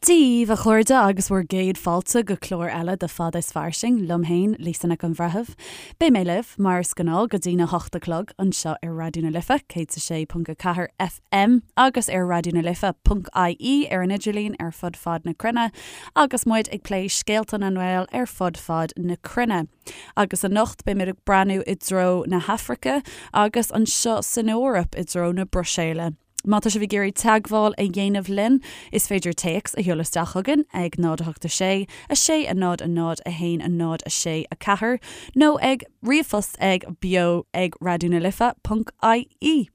Dia dhaoibh, a chairde, agus bhur gcéad fáilte go clár eile de Fada is Fairsing, liom féin, Lisa Nic an Bhreithimh. Beidh mé libh, mar is gnáth, go dtína hocht a chlog, anseo ar Raidió na Life, 106.4 FM, agus ar raidionalife.ie ar an idirlíon ar fud fad na cruinne, agus muid ag plé scéalta na nGael ar fud fad na cruinne. Agus anocht, beimid ag breathnú i dtreo na hAfraice, agus anseo san Eoraip, i dtreo na Bruiséile. Má tá sibh ag iarraidh teagmháil a dhéanamh linn, is féidir téacs a sheoladh isteach chugainn ag 0 8 6 6 0 0 1 0 6 4 nó ag ríomhphost ag beo ag raidionalife.ie.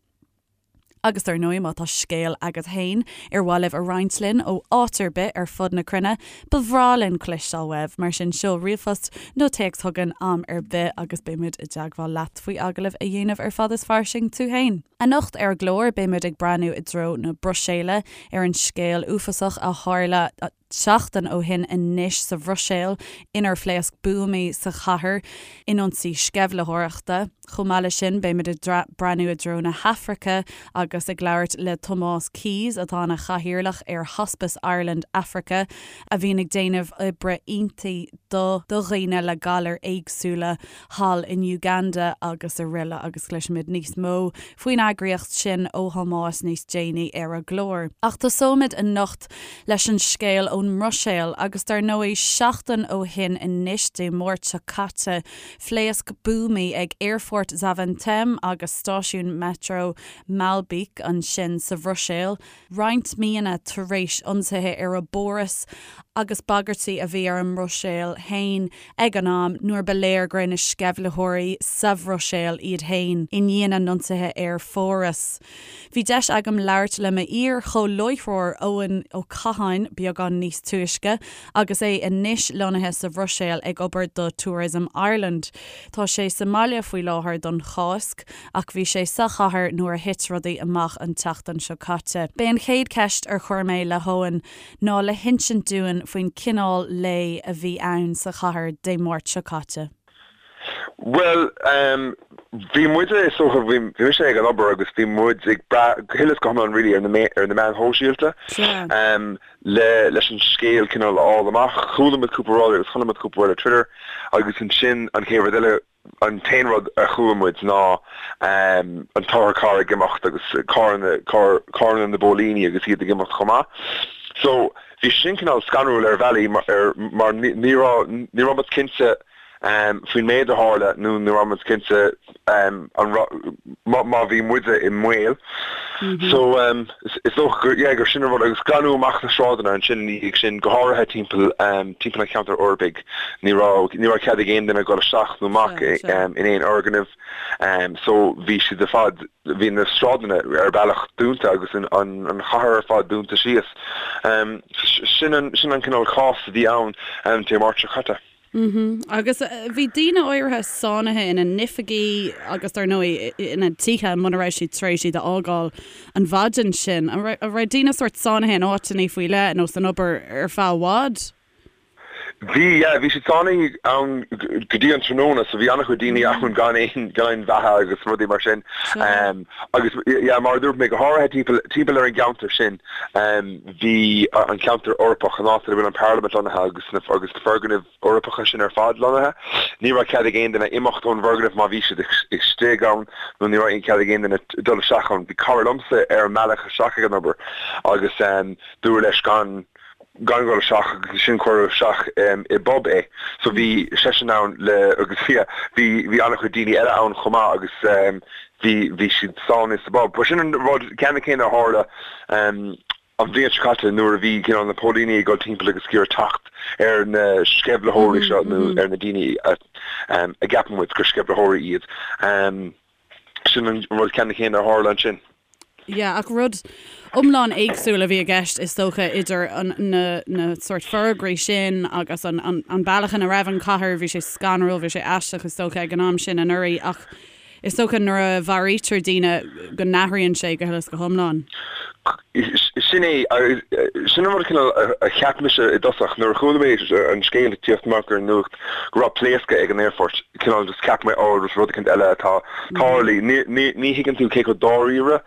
Agus dar ndóigh, má tá scéal agat féin ar mhaith libh a roinnt linn ó áit ar bith ar fud na cruinne, ba bhreá linn cloisteáil uaibh. Mar sin, seol ríomhphost nó téacs chugainn am ar bith agus beimid i dteagmháil leat faoi agallamh a dhéanamh ar Fada is Fairsing tú féin. Anocht ar an gclár, beimid ag breathnú i dtreo na Bruiséile ar an scéal uafásach a tharla seachtain ó shin anois sa Bhruiséil inar phléasc buamaí sa chathair in ionsaí sceimhlitheoireachta. Chomh maith leis sin, beimid ag breathnú i dtreo na hAfraice agus ag labhairt le Tomás Keyes, atá ina chathaoirleach ar Hospice Ireland Africa, a bhíonn ag déanamh oibre iontaí do dhaoine le galair éagsúla. thall in Uganda agus araile agus cloisfimid níos mó faoin eagraíocht sin ó Thomás níos déanaí ar an gclár. Ach tosóimid anocht leis an scéal ón mBruiséil agus dar ndóigh seachtain ó shin anois, Dé Máirt seo caite, phléasc buamaí ag Aerfort Zaventem agus stáisiún Metro Maelbeek ansin sa Bhruiséil. roinnt míonna tar éis ionsaithe ar an bPáras agus bagairtí a bhí ar an mBruiséil féin ag an am nuair ba léir go raibh na sceimhlitheoirí sa Bhruiséil iad féin i ndiaidh na n-ionsaithe ar Pháras. Bhí deis agam labhairt le m'iar-chomhláithreoir Eoin Ó Catháin beagán níos túisce agus é anois lonnaithe sa Bhruiséil ag obair do Tourism Ireland. Tá sé sa mbaile faoi láthair don Cháisc. ach bhí sé sa chathair nuair a thit rudaí amach an tseachtain seo caite. B'é an chéad cheist ar chuir mé le hEoin ná le hinsint dúinn faoin cineál lae a bhí ann sa chathair Dé Máirt seo caite. Bhuel, bhí muide, is dócha, bhí mise ag an obair agus bhí muid ag brath go huile is go hiomlán really ar na ar na meáin shóisialta le leis an scéal cineál a fháil amach. Chuala muid cúpla rud agus chonaic muid cúpla rud ar Twitter agus ansin an chéad rud eile, An t-aon rud a chuala muid ná an t-otharcharr ag imeacht agus carranna, carranna na bpóilíní agus iad ag imeacht chomh maith. So, bhí sin cineál scanrúil ar bhealaí mar ní raibh, ní raibh muid cinnte faoin méid a tharla nó ní raibh muid cinnte an raibh, má bhí muide i mbaol. So, is dócha gur, yeah, gur sin an rud agus glanadh amach na sráideanna ansin ina dhiaidh sin, go háirithe timpeall, timpeall an cheantair Eorpaigh. Ní raibh, ní raibh cead ag aon duine dul isteach nó amach in aon fhoirgneamh. So, bhí siad ar fad, bhí na sráideanna ar bealach dúnta agus an, an chathair ar fad dúnta síos. Sin an, sin an cineál cás a bhí ann Dé Máirt seo caite. Agus bhí daoine áirithe sáinnithe ina n-oifigí agus dar ndóigh ina dtithe muna raibh siad tar éis iad a fhágáil an mhaidin sin. An raibh daoine sórt sáinnithe in áiteanna faoi leith nó san obair ar feadh i bhfad? Bhí, yeah, bhí siad sáinnithe ann go dtí an tráthnóna so bhí an-chuid daoine ann gan aon, gan aon bheatha agus rudaí mar sin. Agus yeah, mar a dúirt mé, go háirithe timpeall, timpeall ar an gceantar sin, bhí an ceantar Eorpach, an áit ina bhfuil an Parlaimint lonnaithe agus na agus na foirgnimh Eorpacha sin ar fad lonnaithe. Ní raibh cead ag aon duine imeacht ón bhfoirgneamh má bhí siad istigh ann nó ní raibh aon cead ag aon duine dul isteach ann. Bhí cara liomsa ar an mbealach isteach ag an obair agus dúradh leis gan gan dhul isteach agus ansin cuireadh isteach i bpub é. So bhí seisean ann le agus bhí bhí bhí an-chuid daoine eile ann chomh maith agus bhí bhí siad sáinnithe sa bpub. Ba sin an rud ceannann céanna a tharla an bhliain seo caite nuair a bhí cineál na póilíní ag dul timpeall agus ag iarraidh teacht ar na sceimhlitheoirí seo nó ar na daoine a a gceapann muid gur sceimhlitheoirí iad. Sin an rud ceannann céanna a tharla ansin. Yeah, ach rud iomlán éagsúil a bhí i gceist is dócha idir an, na, na sórt forógraí sin agus an, an, an bealach ina raibh an chathair, bhí sé scanrúil, bhí sé aisteach is dócha ag an am sin anuraidh ach is dócha nuair a mharaítear daoine go n-athraíonn sé go huile is go hiomlán. Sin é, sin an rud cineál a cheap mise i dtosach nuair a chuala mé an scéal ag tíocht amach ar an nuacht go raibh pléascadh ag an aerfort, cineál just cheap mé oh rud éicint eile atá tarlaithe. Ní thuigeann tú cé chomh dáiríre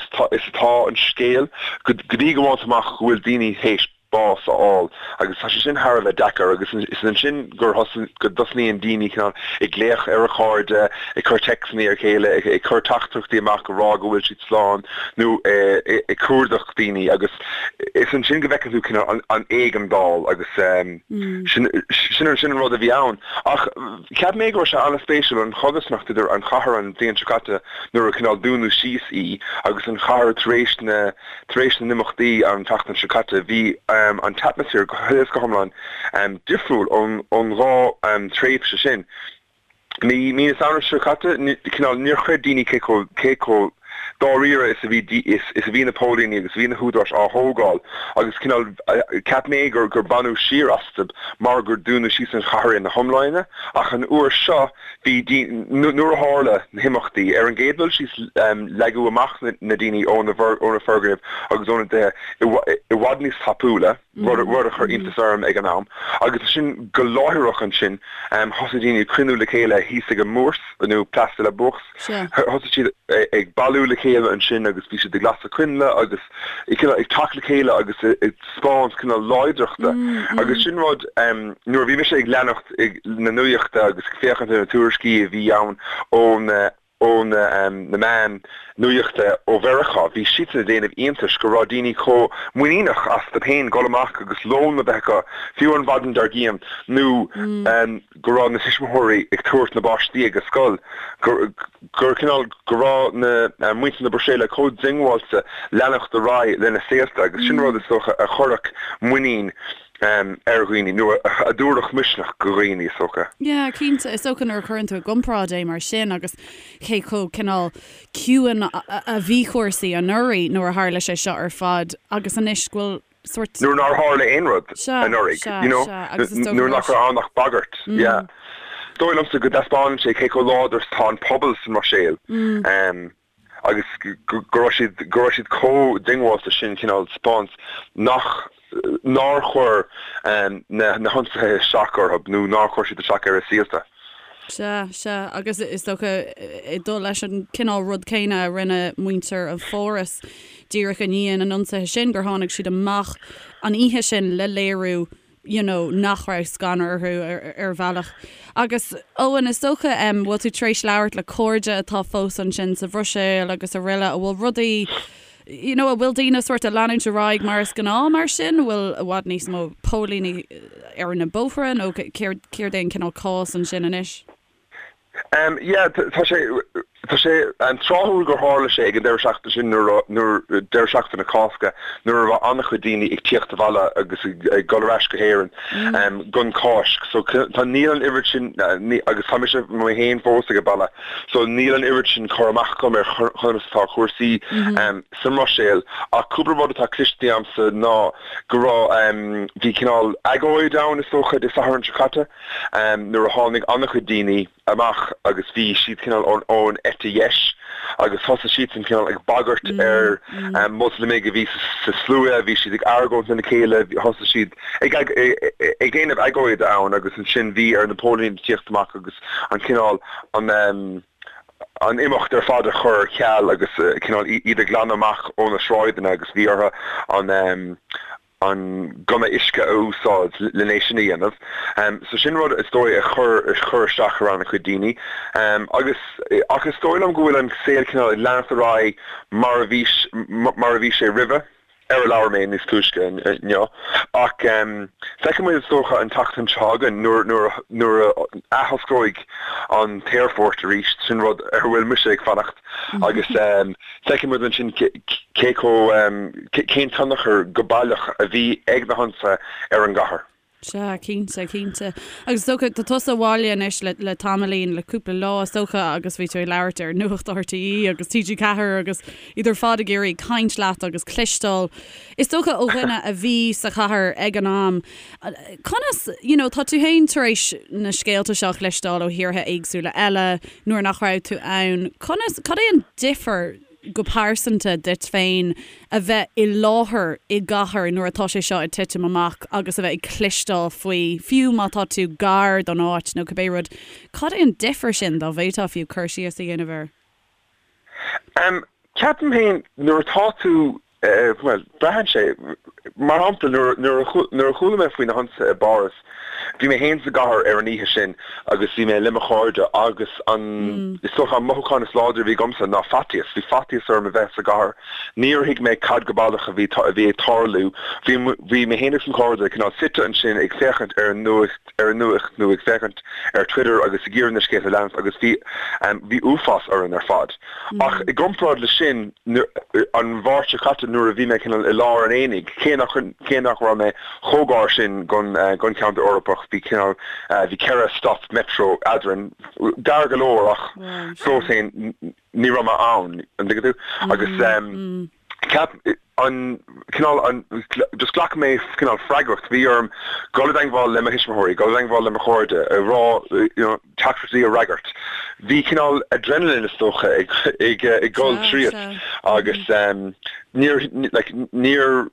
is atá an scéal go dtí go bhfaigheann tú amach go bhfuil daoine théis. bás a fháil agus tá sé sin thar a bheith deacair agus is ansin gur go dtosnaíonn daoine cineál ag glaoch ar a chairde, ag cur téacsanna ar a chéile, ag cur teachtaireachtaí amach ag rá go bhfuil siad slán nó ag cuardach daoine agus is ansin go bhfeiceann tú cineál an éigeandáil agus sin sin an rud a bhí ann. Ach cheap mé go raibh sé an-spéisiúil an chodarsnacht idir an chathair an bhliain seo caite nuair a cineál dúnadh síos í agus an chathair tar éis na Tar éis na n-imeachtaí an tseachtain seo caite, bhí an t-atmaisféar go huile is go hiomlán difriúil ón dhá thréimhse sin. Mí na Samhna seo caite, cineál, níor chreid daoine cé chomh, cé chomh dáiríre is a bhí, is a bhí na póilíní agus a bhí na húdaráis á thógáil agus cineál, cheap mé gur, gur baineadh siar astu mar gur dúnadh síos an chathair ina hiomláine ach an uair seo, Bhí, nuair a tharla na himeachtaí, ar an gcéad dul síos leagadh amach na daoine ó na foirgnimh agus óna dtithe i bhfad níos tapúla, rud a chuir iontas orm ag an am, agus ansin go láithreach ansin thosaigh daoine ag cruinniú le chéile thíos ag an mBourse, nó Place de la Bourse, thosaigh siad ag bailiú le chéile ansin agus bhí siad ag lasadh coinnle agus ag teacht le chéile agus ag taispeáint cineál láidreachta agus sin rud nuair a bhí mise ag leanacht na nuachta agus ag féachaint ar na tuairiscí a bhí ann ó na ó na na meáin nuachta ó Mheiriceá, bhí siadsan ag déanamh iontais go raibh daoine chomh muiníneach astu féin dul amach agus lón a bheith acu fiú an mhaidin dár gcionn nó go raibh na tuismitheoirí ag tabhairt na bpáistí ag an scoil, gur gur cineál go raibh na muintir na Bruiséile chomh diongbháilte leanacht ar aghaidh lena saolta agus sin rud is dócha a chuirfeadh muinín ar dhaoine nó a dtabharfadh misneach go dhaoine is dócha. Yeah, cinnte. Is dócha nuair a chuireann tú i gcomparáid é mar sin agus cé chomh cineál ciúin a bhí cúrsaí anuraidh nuair a tharla sé seo ar fad agus anois go bhfuil sórt. Nuair nár tharla aon rud anuraidh, you know, nuair nach raibh ann ach bagairt, yeah. Is dóigh liomsa go dtaispeánann sé cé chomh láidir is atá an pobal sa mBruiséil agus go raibh siad, go raibh siad chomh diongbháilte sin cineál taispeáint nach, nár chuir na hionsaithe isteach orthu nó nár chuir siad isteach ar a saolta. Sea, sea, agus is dócha, ag dul leis an cineál rud céanna a rinne muintir an Pháras díreach i ndiaidh na n-ionsaithe sin, gur tháinig siad amach an oíche sin le léiriú you know nach raibh scanradh orthu ar bhealach. Agus Eoin, is dócha, em, bhfuil tú tar éis labhairt le cairde atá fós ansin sa Bhruiséil agus araile, an bhfuil rudaí, you know, an bhfuil daoine sórt ag leanúint ar aghaidh mar is gnáth mar sin? An bhfuil i bhfad níos mó póilíní ar na bóithre nó céard, céard é an cineál cás ansin anois? Um, yeah, tá sé, tá sé um, tráthúil gur tharla sé ag an deireadh seachtaine sin nuair, nuair, deireadh seachtaine Cásca, nuair a raibh an-chuid daoine ag tíocht abhaile agus ag, ag dul ar ais go hÉirinn um, don Cháisc. So tá, níl an oiread sin, ní, agus tá mise mé féin fós ag an baile, So níl an oiread sin cur amach agam ar chonas atá cúrsaí sa mBruiséil ach cúpla rud atá cliste agamsa ná go raibh, bhí cineál agóid ann is dócha Dé Sathairn seo caite nuair a tháinig an-chuid daoine amach agus bhí siad cineál ón eite dheis agus thosaigh siadsan cineál ag bagairt ar Mhoslamaigh a bhí sa slua, bhí siad ag argóint lena chéile, thosaigh siad ag ag déanamh agóide ann agus ansin bhí ar na póilíní tíocht amach agus an cineál an an imeacht ar fad a chur ar ceal agus cineál iad a ghlanadh amach ó na sráideanna agus bhí orthu an an gunna uisce a úsáid len é sin a dhéanamh. So sin rud is dóigh a chuir a chuir isteach ar an-chuid daoine. Agus ach is dóigh liom go bhfuil an saol cineál ag leanacht ar aghaidh mar a bhí mar a bhí sé roimhe. ar a labhair mé níos túisce inniu, ach feicfidh muid is dócha an tseachtain seo chugainn nuair a athosclóidh an t-aerfort arís, sin rud ar a bhfuil mise ag fanacht, agus feicfidh muid ansin cé chomh, cén tionchar go baileach a bhí ag na hionsaithe ar an gcathair. Sea, cinnte, cinnte. Agus is dócha, tá tusa abhaile anois le, le tamaillín, le cúpla lá is dócha agus bhí tú ag labhairt ar Nuacht RTÉ agus TG4 agus iad ar fad ag iarraidh caint leat agus cloisteáil. Is dócha ó dhuine a bhí sa chathair ag an am, conas, you know, tá tú féin tar éis na scéalta seo a chloisteáil ó thíortha éagsúla eile nuair nach raibh tú ann, conas, cad é an difear go pearsanta duit féin a bheith i láthair i gcathair nuair atá sé seo ag titim amach agus a bheith ag cloisteáil faoi, fiú má tá tú gar don áit nó cibé rud, cad é an difear sin, dá bhféadfá fiú cur síos a dhéanamh air? Ceapaim féin nuair atá tú. Bhuel, braitheann sé. Mar shampla, nuair a chuala mé faoi na hionsaithe i bPáras, bhí mé féin sa gcathair ar an oíche sin agus bhí mé le mo chairde agus an, is dócha, an mothúchán is láidre a bhí agamsa ná faitíos. Bhí faitíos orm a bheith sa gcathair. Níor thuig mé cad go baileach a bhí a bhí ag tarlú. Bhí, bhí mé féin agus mo chairde cineál suite ansin ag féachaint ar an nuacht, ar an nuacht nó ag féachaint ar Twitter agus ag iarraidh na scéalta a leanacht agus bhí, bhí uafás orainn ar fad. Ach i gcomparáid leis sin, an Mháirt seo caite nuair a bhí mé cineál i lár an aonaigh, cé nach cé nach raibh mé chomh gar sin gon gon cheantar Eorpach, bhí cineál bhí ceithre stop metro eadrainn, gar go leor ach fós féin ní raibh mé ann, an dtuigeann tú? Agus ceap an cineál an just ghlac mé cineál freagracht, bhí orm dul i dteangmháil le mo thuismitheoirí, dul i dteangmháil le mo chairde, a rá you know teachtaireachtaí a fhreagairt. Bhí cineál adrenaline is dócha ag ag ag dul tríot agus níor like níor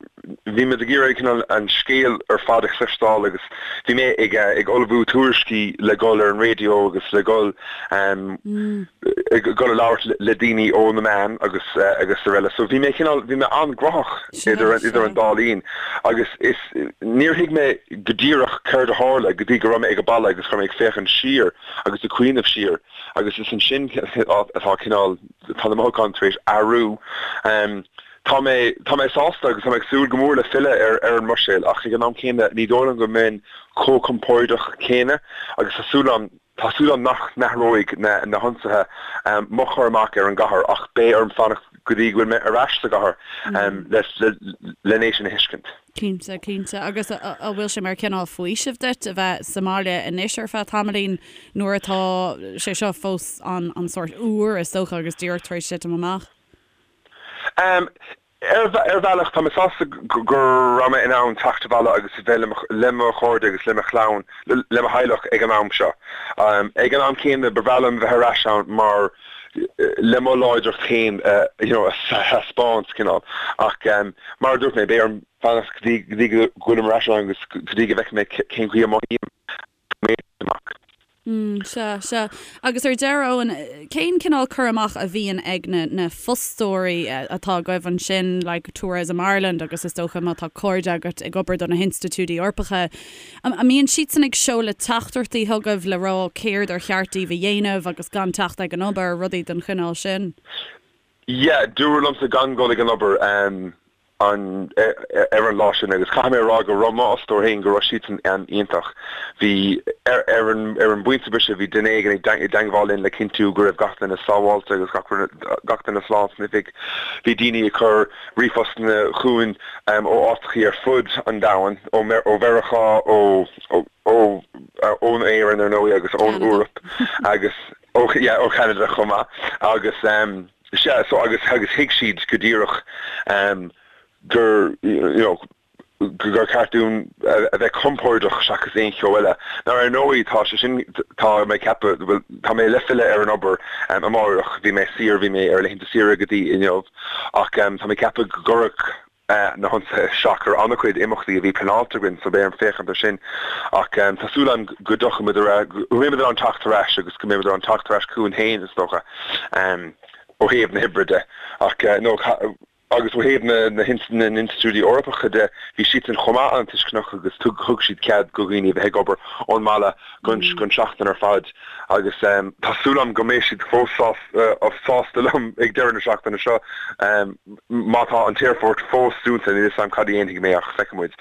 bhí muid ag iarraidh cineál an scéal ar fad a chloisteáil agus bhí mé ag ag ullmhú tuairiscí le dul ar an raidió agus le dul ag dul a labhairt le daoine ó na meáin agus agus araile. So bhí mé cineál, bhí mé an-ghnóthach idir idir an dá linn agus is níor thuig mé go díreach céard a tharla go dtí go raibh mé ag an baile agus go raibh mé ag féachaint siar agus ag cuimhneamh siar agus is ansin atá cineál, tá na mothúcháin tar éis athrú. Tá mé, tá mé sásta agus tá mé ag súil go mór le filleadh ar ar an mBruiséil ach ag an am céanna ní dóigh liom go mbeinn chomh compordach céanna agus tá súil agam Tá súil agam nach n-athróidh na hionsaithe mo chur amach ar an gcathair ach beidh orm fanacht go dtí go bhfuil mé ar ais sa gcathair len é sin a thuiscint. Cinnte, cinnte. Agus an bhfuil sé mar chineál faoisimh duit a bheith sa mbaile anois ar feadh tamaillín nuair atá sé seo fós an sórt úr is dócha agus díreach tar éis titim amach? Ar bhealach, tá mé sásta go raibh mé in ann teacht abhaile agus a bheith le mo chairde agus le mo chlann, le mo theaghlach ag an am seo. Ag an am céanna, ba bhreá liom bheith ar ais ann mar le mo láidreacht féin you know a thaispeáint, cineál. Ach mar a dúirt mé, beidh orm fanacht go dtí go bhfuilim ar ais ann agus go dtí go bhfeicfidh mé cén chaoi a mothaím. amach. Mm, sea, sea. Agus ar deireadh, Eoin, cén cineál cur amach a bhíonn ag na, na fostóirí atá agaibh ansin, like Tourism Ireland agus is dócha má tá cairde agat ag obair do na hinstitiúidí Eorpacha, an mbíonn siadsan ag seoladh teachtaireachtaí chugaibh le rá céard ar cheart daoibh a dhéanamh agus gan teacht ag an obair, rudaí den chineál sin? Yeah, dúradh liomsa gan dul ag an obair. an ar an lá sin agus caithfidh mé a rá go raibh m'fhostóir féin, go raibh siadsan iontach. Bhí, ar ar an ar an bpointe boise bhí duine éigin ag i dteangmháil linn le cinntiú go raibh gach duine sábháilte agus gach gach duine slán san oifig. Bhí daoine ag cur ríomhphostanna chugainn ó áiteachaí ar fud an domhain, ó ó Mheiriceá, ó ó ó ón Éirinn ar ndóigh agus ón Eoraip agus ó yeah ó Cheanada chomh maith agus sea so agus agus thuig siad go díreach gur you know gur ceart dúinn a bheith compordach seachas aon cheo eile. Now ar ndóigh tá sé sin tá mé ag ceapadh bhuel tá mé le filleadh ar an obair amárach bhí mé saor bhí mé ar laethanta saoire go dtí inniu ach tá mé ag ceapadh go gcuirfeadh na hionsaithe isteach ar an-chuid imeachtaí a bhí pleanáilte againn so beidh orm féachaint ar sin ach tá súil agam go dtiocfaidh muid ar ais, go mbeidh muid in ann teacht ar ais agus go mbeidh muid in ann teacht ar ais chugainn féin is dócha ó thaobh na hoibre de ach no agus ó thaobh na na n-institiúidí Eorpacha de bhí siadsan chomh maith an-tuisceanach agus thug siad cead go dhaoine a bheith ag obair ón mbaile gon seachtain ar fad agus tá súil agam go mbeidh siad fós sásta liom ag deireadh na seachtaine seo. Má tá an t-aerfort fós dúnta, níl 'fhios a'm cad a dhéanfaidh mé ach feicfidh muid.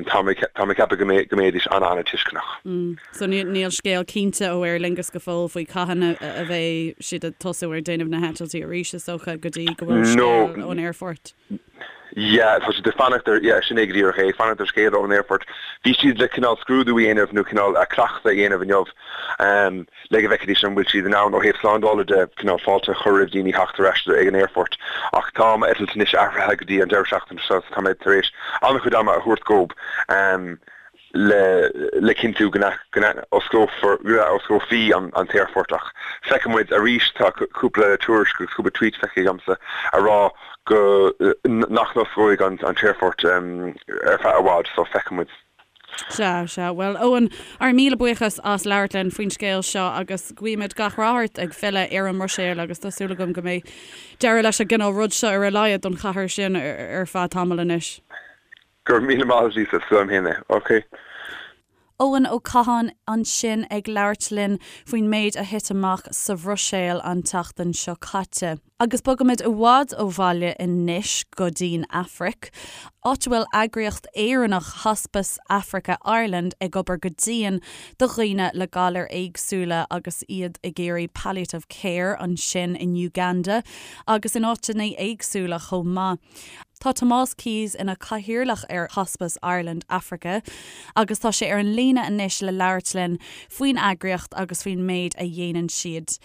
Tá mé tá mé ag ceapadh go mbeidh go mbeidís an-an-tuisceanach. So níl scéal cinnte ó Aer Lingus go fóill faoi cathain a bheidh siad ag tosú ar déanamh na heitiltí arís is dócha go dtí go bhfuil scéal ón aerfort. Yeah, tá siad ag fanacht ar, yeah, sin é go díreach é, ag fanacht ar scéala ón aerfort. Bhí siad le cineál scrúdú a dhéanamh nó cineál cleachtadh a dhéanamh inniu le go bhfeicfidís an bhfuil siad in ann ó thaobh slándála de cineál fáilte a chur roimh daoine theacht ar ais ag an aerfort. Ach tá m'eitilt anois athraithe go dtí an deireadh seachtaine seo so tá mé tar éis an-chuid ama a thabhairt dhób. Le le cinntiú go n-osclófar, go n-osclófaí an t-aerfort ach feicfidh muid arís, tá cúpla tuairisc agus cúpla tweet feicthe agamsa a rá go nach n-osclóidh an t-aerfort ar feadh i bhfad so feicfidh muid. Sea, sea. Bhuel, Eoin, ár míle buíochas as labhairt linn faoin scéal seo agus guímid gach rath ort ag filleadh ar an mBruiséil agus tá súil agam go mbeidh deireadh leis an gcineál rud seo ar a laghad don chathair sin ar feadh tamaill anois. Go raibh míle maith agat Lisa, is liom féin é. Ok. Eoin Ó Catháin ansin ag labhairt linn faoin méid a thit amach sa Bhruiséil an tseachtain seo caite. Agus bogaimid i bhfad ó bhaile anois go dtí'n Afraic, áit a bhfuil eagraíocht Éireannach Hospice Africa Ireland ag obair go dian do dhaoine le galair éagsúla agus iad ag iarraidh palliative care ansin in Uganda agus in áiteanna éagsúla chomh maith. Tá Tomás Keyes ina chathaoirleach ar Hospice Ireland Africa agus tá sé ar an líne anois le labhairt linn faoin eagraíocht agus faoin méid a dhéanann siad.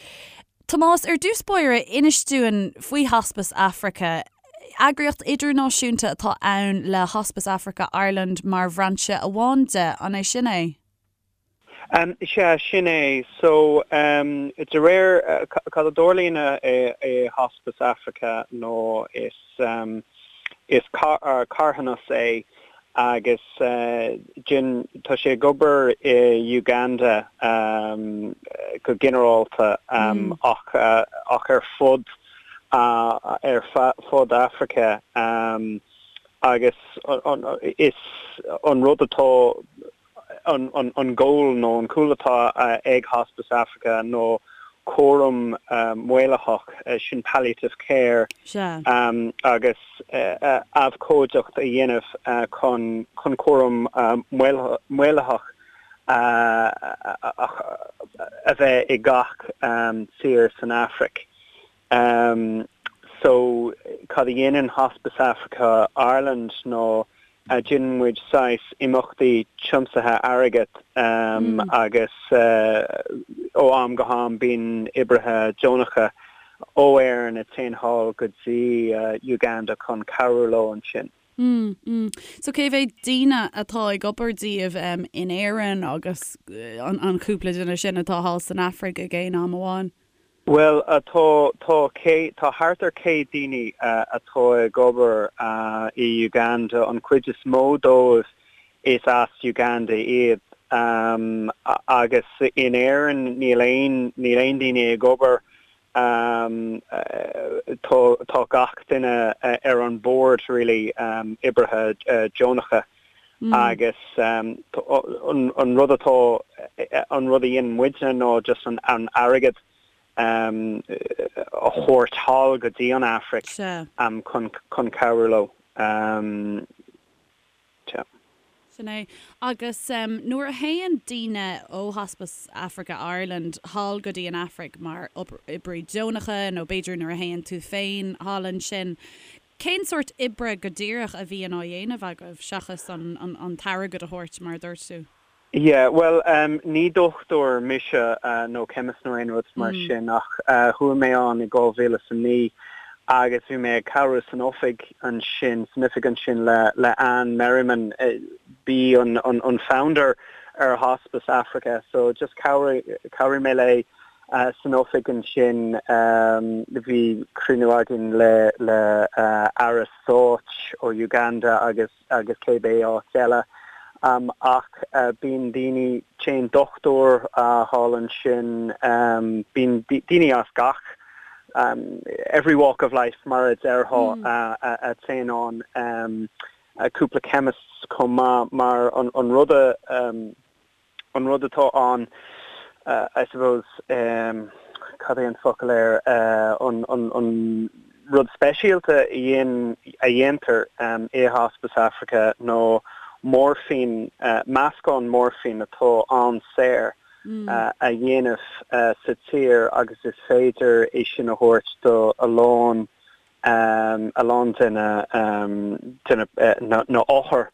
Tomás, ar dtús báire, inis dúinn faoi Hospice Africa. Eagraíocht idirnáisiúnta atá ann le Hospice Africa Ireland mar bhrainse amháin de, an é sin é? Sea, sin é. So, de réir cad a dtarlaíonn i Hospice Africa nó is is carthanas é agus tá sé ag obair i Uganda go ginearálta ach ach ar fud ar fud Africa agus is an rud atá an goal nó an cúl atá ag Hospice Africa nó cúram maolaitheach, sin palliative care, agus abhcóideacht a dhéanamh chun cúram maolaitheach a bheith i gach tír san Afraic. So, cad a dhéanann Hospice Africa Ireland nó déanann muid saghas imeachtaí tiomsaithe airgid agus ó am go ham bíonn oibrithe deonacha ó Éirinn a téann thall go dtí Uganda chun cabhrú leo ansin. Mm, mm. So cé mhéad daoine atá ag obair díobh in Éirinn agus an cúpla duine sin atá thall san Afraic ag aon am amháin? Bhuel, tá, tá cé, tá thart ar 100 daoine atá ag obair i Uganda, an chuid is mó dóibh is as Uganda iad agus in Éirinn níl aon, níl aon daoine ag obair, tá, tá gach duine ar an bord really, oibrithe deonacha agus an rud atá, an rud a dhéanann muidne ná just an airgead a thabhairt thall go dtí an Afraic chun cabhrú leo. Sin é. Agus nuair a théann daoine ó Hospice Africa Ireland thall go dtí an Afraic mar oibrí deonacha nó b'fhéidir nuair a théann tú féin thall ansin, Cén sórt oibre go díreach a bhíonn á dhéanamh agaibh, seachas an t-airgead a thabhairt, mar a dúirt tú? Yeah, bhuel, ní dochtúir mise nó chemist nó aon rud mar sin ach chuaigh mé ann i 2009 agus bhí mé ag cabhrú san oifig ansin, san oifig ansin le le Anne Merriman, b'í an an founder ar Hospice Africa so just chabhraigh chabhraigh mé léi San oifig ansin bhí cruinniú againn le le Aire Stáit ó Uganda agus agus cébé áit eile. Ach bíonn daoine, téann dochtúir thall ansin, bíonn daoine as gach, every walk of life mar a déarfá, a téann ann, cúpla chemists chomh maith mar an rud a, An rud atá ann, I suppose, cad é an focal air, an rud speisialta a dhéantar i Hospice Africa ná moirfín, meascán moirfín atá an-saor a dhéanamh sa tír agus is féidir é sin a thabhairt do a lán a lán de na de na na othair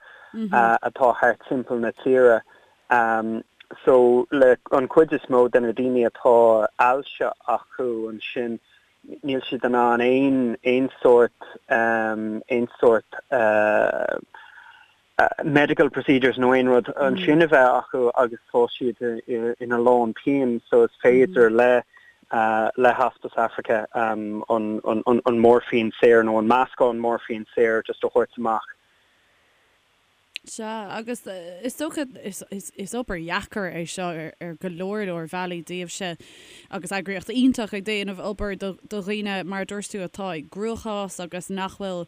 atá thart timpeall na tíre. So le an chuid is mó de na daoine atá ailse acu ansin níl siad in ann aon aon sórt aon sórt medical procedures nó aon rud ansin a bheith acu agus tá siad ina lán pian so is féidir le le Hospice Africa an an morphine saor nó an meascán morphine saor just a thabhairt amach. Sea, agus is dócha, is obair dheacair é seo ar go leor leor bealaí daoibhse agus eagraíocht iontach ag déanamh obair do dhaoine, mar a dúirt tú, atá i gcruachás agus nach bhfuil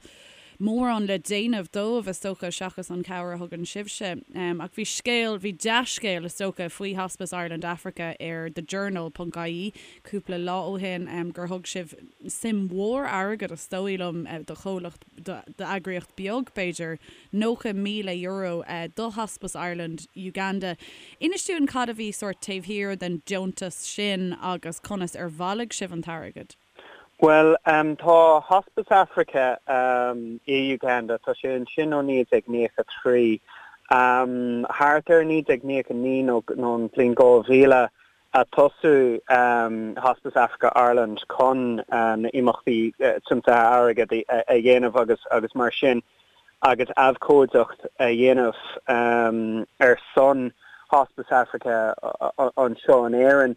mórán le déanamh dóibh, is dócha, seachas an chabhair a thugann sibhse. Ach bhí scéal, bhí dea-scéal, is dócha, faoi Hospice Ireland Africa ar The Journal ponc ie cúpla lá ó shin, gur thug sibh suim mhór airgid, is dóigh liom, do chomhlacht, d'eagraíocht beag, b'fhéidir, €90,000 do Hospice Ireland Uganda. Inis dúinn cad a bhí sórt taobh thiar den deontas sin agus conas ar bhailigh sibh an t-airgead? Bhuel, tá Hospice Africa i Uganda, tá sé ansin ó 1993. Thart ar 1999 nó an bhliain 2000 a tosaíodh Hospice Africa Ireland chun na imeachtaí tiomsaithe airgid a dhéanamh agus agus mar sin agus abhcóideacht a dhéanamh ar son Hospice Africa anseo in Éirinn.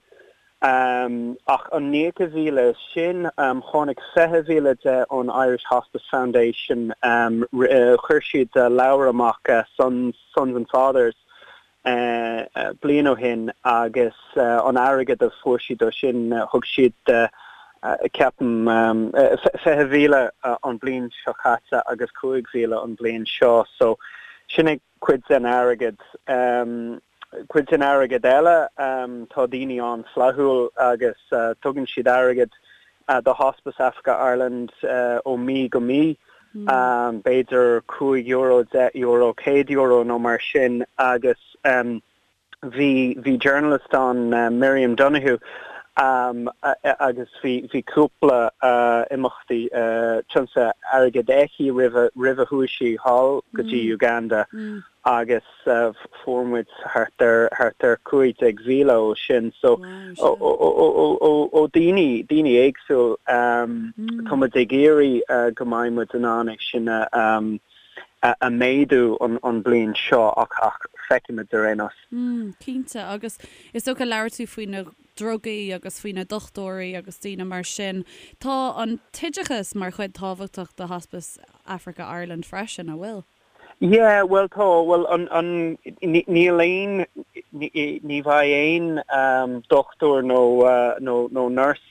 Ach an 90,000 sin, tháinig 20,000 de ón Irish Hospice Foundation. Chuir siad leabhar amach, Sons and Fathers, bliain ó shin agus an airgead a fuair siad ó sin, thug siad, ceapaim, 20,000 an bliain seo caite agus 5,000 an bliain seo. So sin é cuid den airgead. Cuid den airgead eile, tá daoine an-fhlaithiúil agus tugann siad airgead do Hospice Africa Ireland ó mí go mí, b'fhéidir €5, €10, €100 nó mar sin agus bhí bhí journalist ann, Miriam Donoghue, agus bhí bhí cúpla imeachtaí tiomsaithe airgid aici roimh roimh a chuaigh sí thall go dtí Uganda agus fuair muid thart ar thart ar 15,000 ó sin so ó ó daoine daoine éagsúil tá muid ag iarraidh go mbeidh muid in ann é sin a a méadú an an bliain seo ach ach feicfimid ar aon nós. Cinnte agus is dócha labhair tú faoi na drugaí agus faoi na dochtúirí agus daoine mar sin. Tá an t-oideachas mar chuid tábhachtach de Hospice Africa Ireland freisin, an bhfuil? Yeah, bhuel tá, bhuel an, an, níl aon, ní bheidh aon dochtúir nó, nó, nó nurse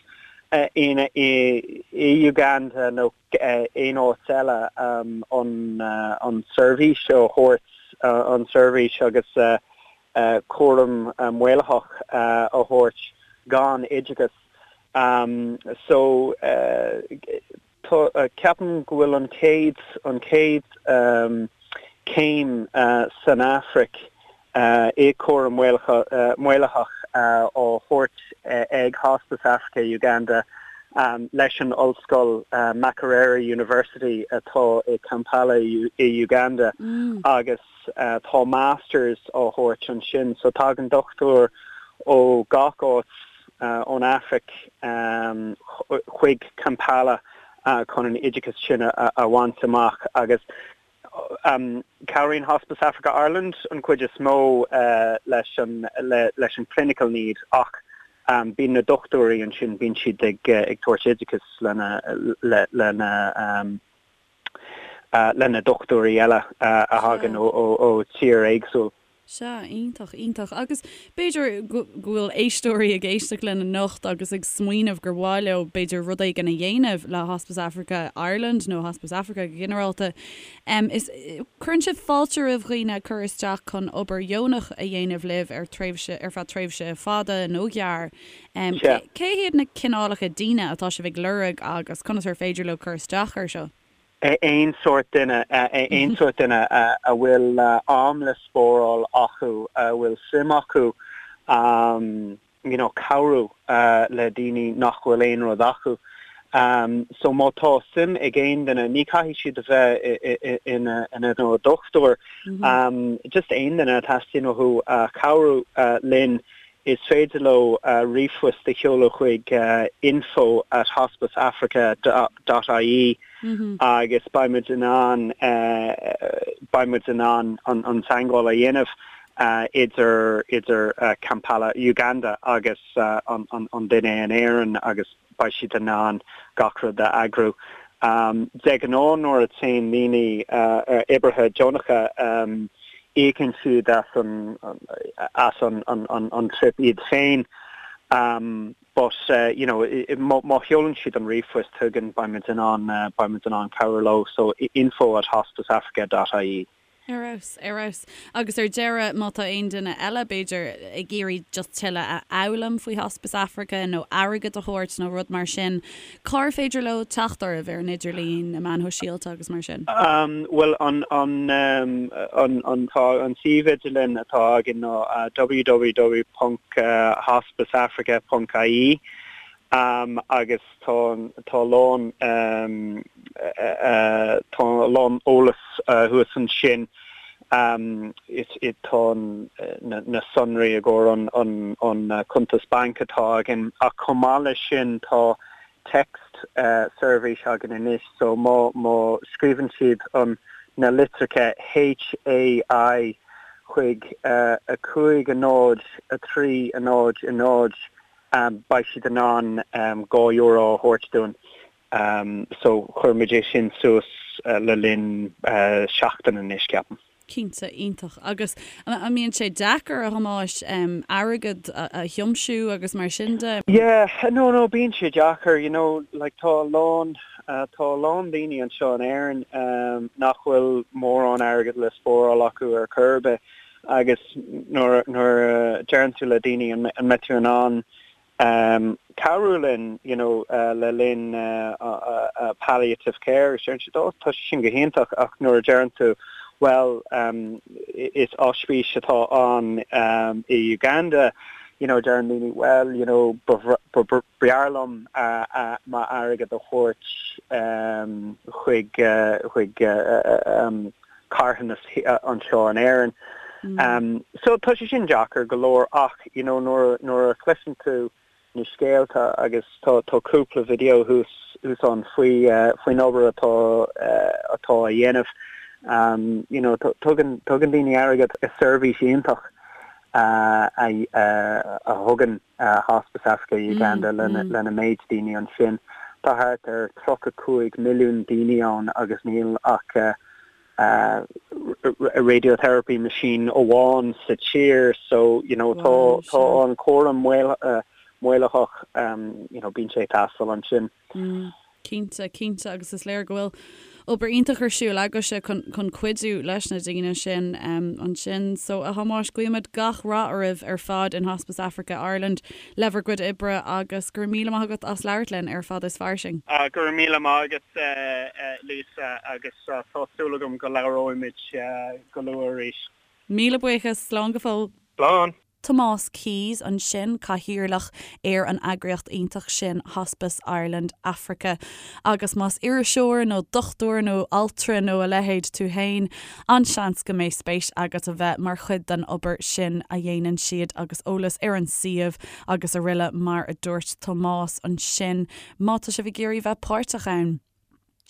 in, i, i Uganda nó aon áit eile an, an seirbhís a thabhairt, an seirbhís agus cúram maolaitheach a thabhairt gan oideachas. So, Tá, ceapaim go bhfuil an chéad, an chéad céim san Afraic i cúram maolaitheach á thabhairt ag Hospice Africa Uganda leis an ollscoil Makerere University atá i Kampala i Uganda agus tá Masters á thabhairt ansin so tagann dochtúir ó gach áit ón Afraic chuig Kampala chun an oideachas sin a bhaint amach agus cabhraíonn Hospice Africa Ireland an chuid is mó leis an leis an clinical need ach bíonn na dochtúirí ansin, bíonn siad ag tabhairt oideachas lena lena le na dochtúirí eile a thagann ó tír éagsúil. Sea, iontach, iontach. Agus b'fhéidir go bhfuil éisteoirí ag éisteacht linn anocht agus ag smaoineamh gur mhaith leo b'fhéidir rud éigin a dhéanamh le Hospice Africa Ireland nó Hospice Africa go ginearálta. Is, cuireann sibh fáilte roimh dhaoine cur isteach chun obair dheonach a dhéanamh libh ar tréimhse, ar feadh tréimhse fada nó gearr. Cé hiad na cineálacha daoine atá sibh ag lorg agus conas ar féidir leo cur isteach air seo? Aon sórt duine, aon sórt duine a bhfuil am le spáráil acu, a bhfuil suim acu you know cabhrú le daoine nach bhfuil aon rud acu. So má tá suim ag aon duine, ní caithfidh siad a bheith ina ina dochtúir, just aon duine a teastaíonn uathu cabhrú linn Is féidir leo ríomhphost a sheoladh chuig info at hospiceafrica dot ie agus beidh muid in ann beidh muid in ann an teagmháil a dhéanamh idir idir Kampala, Uganda agus an duine in Éirinn agus beidh siad in ann gach rud a eagrú. De ghnáth nuair a téann daoine, oibrithe deonacha. Íocann siad as an as an an trip iad féin but you know má sheolann siad an ríomhphost chugainn beidh muid in ann beidh muid in ann cabhrú leo so info at hospiceafrica dot ie. Ar fheabhas, ar fheabhas. Agus ar deireadh, má tá aon duine eile, b'fhéidir, ag iarraidh just tuilleadh a fhoghlaim faoi Hospice Africa nó airgead a thabhairt nó rud mar sin, cár féidir leo teacht oraibh ar an idirlíon, na meáin shóisialta agus mar sin? Bhuel, an, an, an, an, tá an suíomh idirlín atá againn ná www ponc hospiceafrica ponc ie agus tá, tá a lán, tá a lán eolas thuas ansin. Is tá na sonraí i gcomhair an cuntas bainc atá againn ach chomh maith leis sin tá text seirbhís againn anois so má má scríobhann siad an na litreacha HAI chuig 5 0 3 0 0 beidh siad in ann €2 a thabhairt dúinn. So chuir muid é sin suas le linn seachtain anois, ceapaim. Cinnte, iontach. Agus an mbíonn sé deacair, a Thomáis, airgead a thiomsiú agus mar sin de? Yeah, no, no, bíonn sé deacair, you know, like tá a lán, tá a lán daoine anseo in Éirinn nach bhfuil mórán airgead le spáráil acu ar chor ar bith agus nuair, nuair a deireann tú le daoine an mbeidh tú in ann cabhrú linn you know le linn palliative care agus deireann siad oh tá sé sin go hiontach ach nuair a deireann tú bhuel is ospís atá ann i Uganda you know deireann daoine well you know b'fhearr liom m'airgead a thabhairt chuig chuig carthanas anseo in Éirinn. So tá sé sin deacair go leor ach you know nuair nuair a chloiseann tú na scéalta agus tá tá cúpla video thuas thuas ann faoi faoin obair atá atá á dhéanamh you know tugann tugann daoine airgead is seirbhís iontach a a thugann Hospice Africa Uganda lena lena méid daoine ansin. Tá thart ar 35 milliún daoine ann agus níl ach radiotherapy machine amháin sa tír so you know tá tá an cúram maolaitheach you know bíonn sé ag teastáil ansin. Cinnte, cinnte agus is léir go bhfuil obair iontach ar siúl agaibhse chun chun cuidiú leis na daoine sin ansin. So a Thomáis, guímid gach rath oraibh ar fad in Hospice Africa Ireland le bhur gcuid oibre agus go raibh míle maith agat as labhairt linn ar Fada is Fairsing. Go raibh míle maith agat Lisa agus tá súil agam go labhróimid go luath arís. Míle buíochas, slán go fóill. Slán. Tomás Keyes ansin, cathaoirleach ar an eagraíocht iontach sin Hospice Ireland Africa. Agus más iriseoir nó dochtúir nó altra nó a leithéid tú féin, an-seans go mbeidh spéis agat a bheith mar chuid den obair sin a dhéanann siad agus eolas ar an suíomh agus aroile mar a dúirt Tomás ansin má tá sibh ag iarraidh bheith páirteach ann.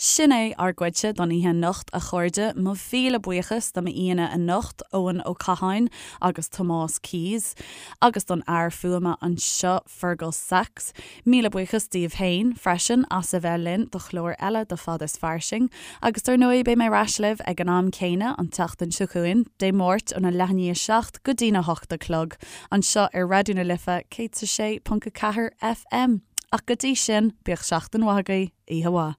Sin é ár gcuidse don oíche anocht, a chairde. Mo mhíle buíochas do m'aíonna anocht, Eoin Ó Catháin agus Tomás Keyes, agus don fhear fuaime anseo, Fergal Sachs. Míle buíochas daoibh féin, freisin, as a bheith linn do chlár eile de Fad is Fairsing. Agus dar ndóigh, beidh mé ar ais libh ag an am céanna an tseachtain seo chugainn, Dé Máirt óna leath i ndiaidh a 7 go dtína hocht a chlog, anseo ar Raidió na Life 106.4 FM. Ach go dtí sin, bíodh seachtain mhaith agaibh, oíche mhaith.